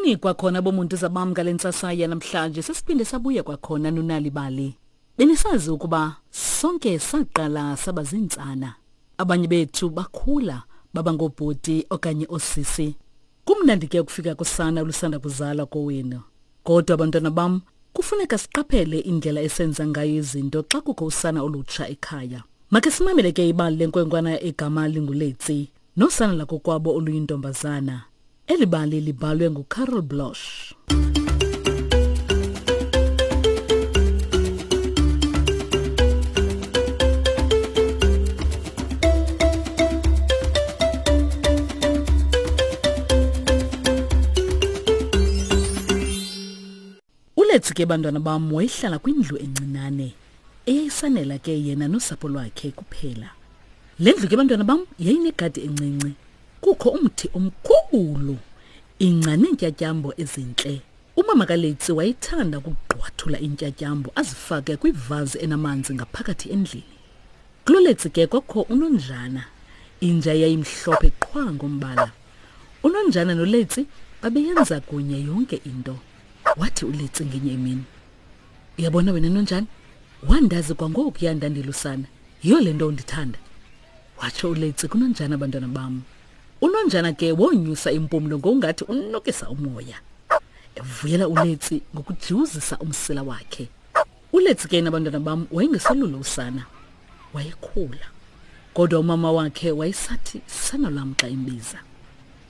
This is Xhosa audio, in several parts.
Molweni kwakhona bomuntu zabam ngale ntsasa yanamhlanje sesiphinde sabuya kwakhona nonalibali. Benisazi ukuba sonke saqala saba ziintsana. Abanye bethu bakhula baba ngoobhuti okanye oosisi. Kumnandi ke ukufika kusana olusanda kuzalwa kowenu. Kodwa bantwana bam, kufuneka siqaphele indlela esenza ngayo izinto xa kukho usana olutsha ekhaya. Makhe simamele ke ibali lenkwenkwana egama linguLetsi nosana lakokwabo oluyintombazana. Eli bali libhalwe nguCarol Bloch. Uletsi ke bantwana bam wayehlala kwindlu encinane eyayisanela ke yena nosapho lwakhe kuphela. Le ndlu ke bantwana bam yayinegadi encinci. Kukho umthi omkhulu, ingca neentyatyambo ezintle. Umama kaLetsi wayethanda ukugqwathula iintyatyambo azifake kwivazi enamanzi ngaphakathi endlini. KuloLetsi ke kwakho unonjana, inja eyayimhlophe qhwa ngombala. Unonjana noLetsi babeyenza kunye yonke into. Wathi uLetsi ngenye imini, Uyabona wena nonjana, wandazi kwangokuya ndandilusana, yiyo le nto undithanda. Watsho uLetsi kunonjana bantwana bam. Unonjana ke wonyusa impumlo ngokungathi unukisa umoya. Evuyela uLetsi ngokujiwuzisa umsila wakhe. ULetsi ke nabantwana bam wayengeselulo usana. Wayekhula. Kodwa umama wakhe wayesathi sana lwam xa embiza.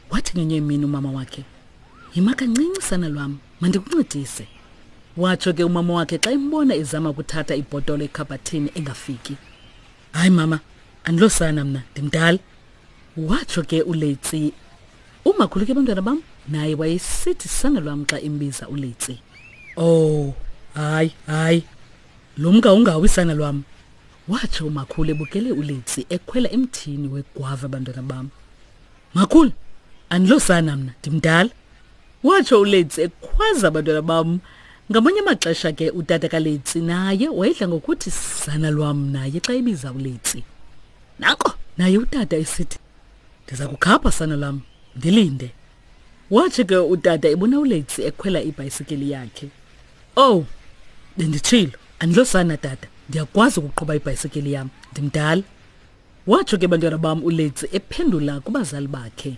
Wathi ngenye imini umama wakhe, Yima kancinci sana lwam, mandikuncedise. Watsho ke umama wakhe xa embona ezama ukuthatha ibhotolo ekhabhathini engafiki. Hayi mama, andilosana mna, ndimdala. Watsho ke uLetsi. Umakhulu ke bantwana bam naye wayesithi sana lwam xa embiza uLetsi. Oh, hayi, hayi. Lumka ungawi sana lwam. Watsho umakhulu ebukele uLetsi ekhwela emthini wegwava bantwana bam. Makhulu, andilosana mna, ndimdala. Watsho uLetsi ekhwaza abantwana bam. Ngamanye amaxesha ke utata kaLetsi naye wayedla ngokuthi sana lwam naye xa ebiza uLetsi. Nanko naye utata esithi ndiza kukhapha sana lwam, ndilinde. Watsho ke utata ebona uLetsi ekhwela ibhayisikili yakhe. Oh, benditshilo, andilosana tata, ndiyakwazi ukuqhuba ibhayisikili yam, ndimdala. Watsho ke bantwana bam uLetsi ephendula kubazali bakhe.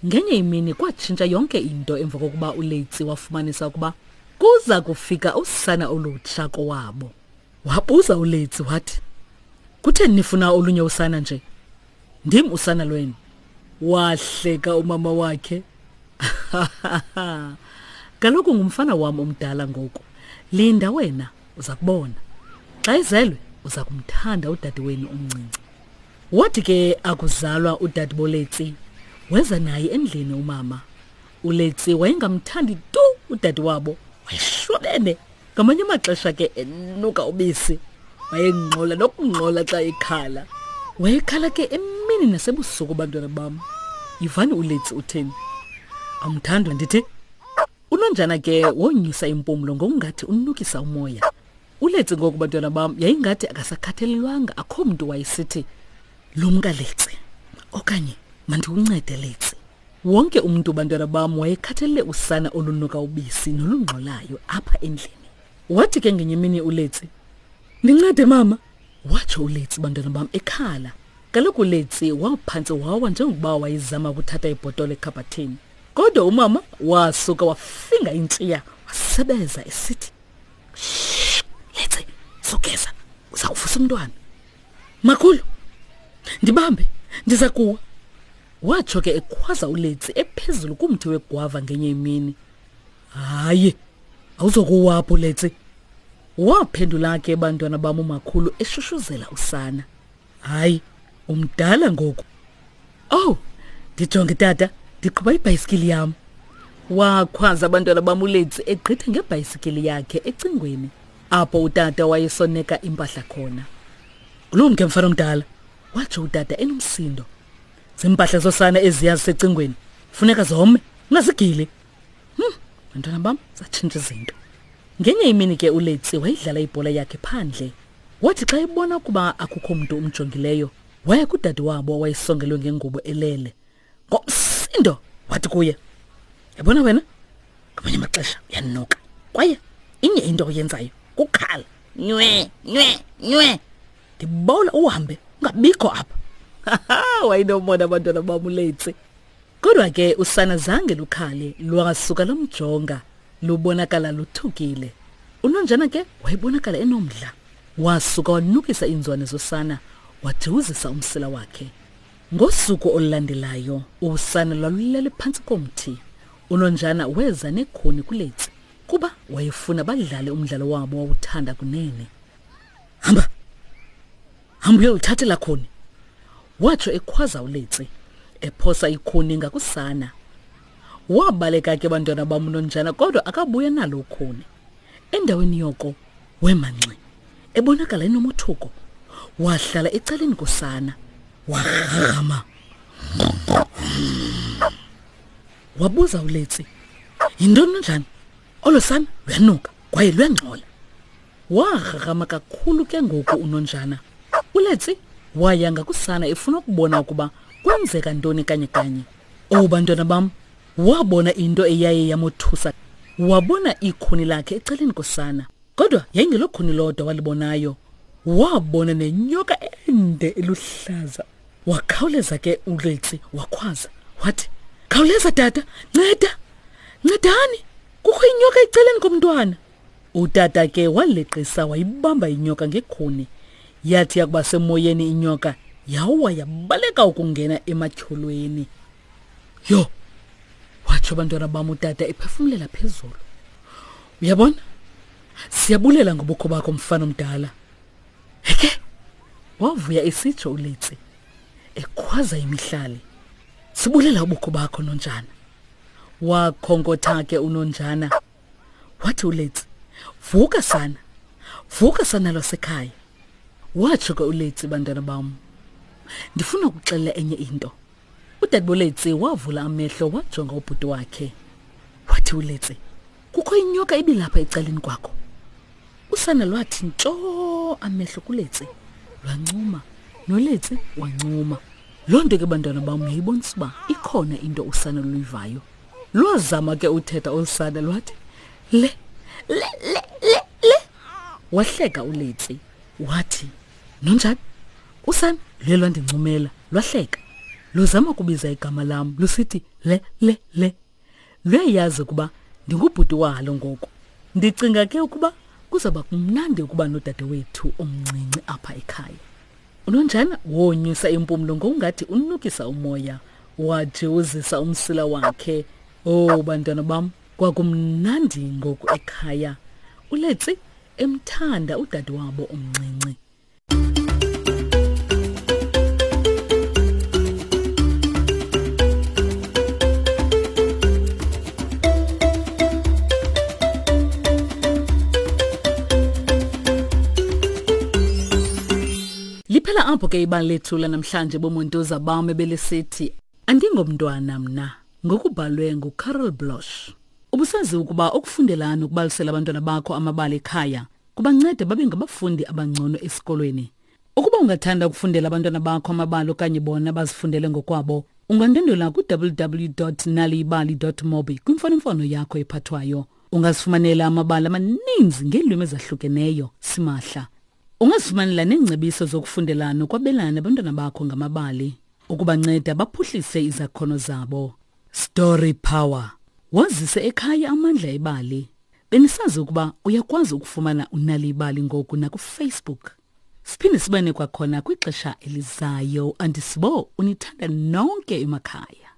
Ngenye imini kwatshintsha yonke into emva kokuba uLetsi wafumanisa ukuba kuza kufika usana olutsha kowabo. Wabuza uLetsi wathi, Kutheni nifuna olunye usana nje? Ndim usana lwenu. Wahleka umama wakhe. Kaloku ngumfana wam omdala ngoku. Linda wena, uza kubona. Xa ezelwe uza kumthanda udade wenu omncinci. Wathi ke akuzalwa udade boLetsi, weza naye endlini umama. ULetsi wayengamthandi tu udade wabo, wayeshwabene. Ngamanye amaxesha ke enuka ubisi, wayengxola nokungxola xa ekhala. Wayekhala ke emini nasebusuku bantwana bam. Yivani uLetsi utheni? Awumthandi ndithi? Unonjana ke wonyusa impumlo ngokungathi unukisa umoya. ULetsi ngoku bantwana bam yayingathi akasakhathalelwanga akho mntu wayesithi lumka Letsi okanye mandikuncede Letsi. Wonke umntu bantwana bam wayekhathalele usana olunuka ubisi nolungxolayo apha endlini. Wathi ke ngenye imini uLetsi, Ndincede mama, watsho uLetsi bantwana bam ekhala. Kaloku uLetsi waphantse wawa njengokuba wayezama ukuthatha ibhotolo ekhabhathini. Kodwa umama wasuka wafinga intshiya wasebeza esithi, Shh, Letsi, sugeza, uza kuvusa umntwana. Makhulu, ndibambe, ndiza kuwa. Watsho ke ekhwaza uLetsi ephezulu kumthi wegwava ngenye imini. Hayi, awuzokuwa apho Letsi. Waphendula ke bantwana bam umakhulu eshushuzela usana. Hayi, umdala ngoku. Oh, ndijonge tata, ndiqhuba ibhayisikili yam. Wakhwaza abantwana bam uLetsi egqitha ngebhayisikili yakhe ecingweni apho utata wayesoneka impahla khona. Ulumke mfana omdala, watsho utata enomsindo. Zimpahla zosana eziya zisecingweni, funeka zome, ungazigili. Bantwana bam, zatshintsha izinto. Ngenye imini ke uLetsi wayidlala ibhola yakhe phandle. Wathi xa ebona ukuba akukho mntu umjongileyo, waya kudade wabo owayesongelwe ngengubo elele. Ngomsindo wathi kuye, Yabona wena, Ngamanye amaxesha uyanuka. Kwaye inye into oyenzayo kukhala. Nywe, nywe, nywe. Ndibawela uhambe ungabikho apha. Wayenomona abantwana bam uLetsi. Kodwa ke usana zange lukhale, lwasuka lomjonga, lubonakala luthukile. Unonjana ke wayebonakala enomdla. Wasuka wanukisa iinzwane zosana, wajiwuzisa umsila wakhe. Ngosuku olulandelayo, usana lwalulele phantsi komthi. Unonjana weza nekhuni kuLetsi kuba wayefuna badlale umdlalo wabo wawuthanda kunene. Hamba! Hamba uyolithathela khuni! Watsho ekhwaza uLetsi, ephosa ikhuni ngakusana. Wabaleka ke bantwana bam unonjana kodwa akabuya nalo ukhuni. Endaweni yoko wema ngxi, ebonakala enomothuko. Wahlala ecaleni kosana, warhama. Wabuza uLetsi, yintoni nonjana? Olo sana luyanuka kwaye luyangxola. Warharhama kakhulu ke ngoku unonjana. ULetsi waya ngakusana efuna ukubona ukuba kwenzeka ntoni kanye kanye. Oh bantwana bam, wabona into eyaye yamothusa. Wabona ikhuni lakhe ecaleni kosana. Kodwa yayingelokhuni lodwa walibonayo. Wabona nenyoka ende eluhlaza. Wakhawuleza ke uLetsi wakhwaza wathi, "Khawuleza tata, nceda! Ncedani! Kukho inyoka ecaleni komntwana." Utata ke waleqisa wayibamba inyoka ngekhuni. Yathi yakuba semoyeni inyoka yawa yabaleka ukungena ematyholweni. Yho! Watsho bantwana bam utata ephefumlela phezulu. Uyabona? Siyabulela ngobukho bakho mfana omdala. Heke! Wavuya esitsho uLetsi ekhwaza imihlali. Sibulela ubukho bakho Nonjana. Wakhonkotha ke uNonjana. Wathi uLetsi, "Vuka sana. Vuka sana lwasekhaya." Watsho ke uLetsi, bantwana bam. Ndifuna ukuxelela enye into. UDadeboletsi wavula amehlo wajonga ubhuti wakhe. Wathi uLetsi, "Kukho inyoka ibilapha ecaleni kwakho." Usana lwathi ntsho amehlo kuLetsi. Lwancuma, noLetsi wancuma. Loo nto ke bantwana bam yayibonisa uba ikhona into usana luyivayo. Lwazama ke uthetha olu sana lwathi le le le le le. Wahleka uLetsi wathi, "Nonjani? Usana luye lwandincumela lwahleka. Luzama ukubiza igama lam lusithi le le le. Luyayazi ukuba ndingubhuti walo ngoku. Ndicinga ke ukuba kuzawuba kumnandi ukuba nodadewethu omncinci apha ekhaya." Unonjana wonyusa impumlo ngokungathi unukisa umoya, wajiwuzisa umsila wakhe. Oh bantwana bam, kwakumnandi ngoku ekhaya. ULetsi emthanda udadewabo omncinci. Liphela apho ke ibali lethu lanamhlanje bomontoza bam ebelisithi andingomntwana mna ngokubhalwe nguCarol Bloch. Ubusazi ukuba ukufundela nokubalisela abantwana bakho amabali ekhaya kubanceda babe ngabafundi abangcono esikolweni. Ukuba ungathanda ukufundela abantwana bakho amabali okanye bona bazifundele ngokwabo, ungandwendwela ku-www.naliyibali.mobi kwimfonomfono yakho ephathwayo. Ungazifumanela amabali amaninzi ngeelwimi ezahlukeneyo simahla. Ungazifumanela neengcebiso zokufundela nokwabelana nabantwana bakho ngamabali ukubanceda baphuhlise izakhono zabo. Story Power. Wazise ekhaya amandla ebali. Benisazi ukuba uyakwazi ukufumana uNal'ibali ngoku nakuFacebook. Siphinde sibane kwakhona kwixesha elizayo. Andisibo unithanda nonke emakhaya.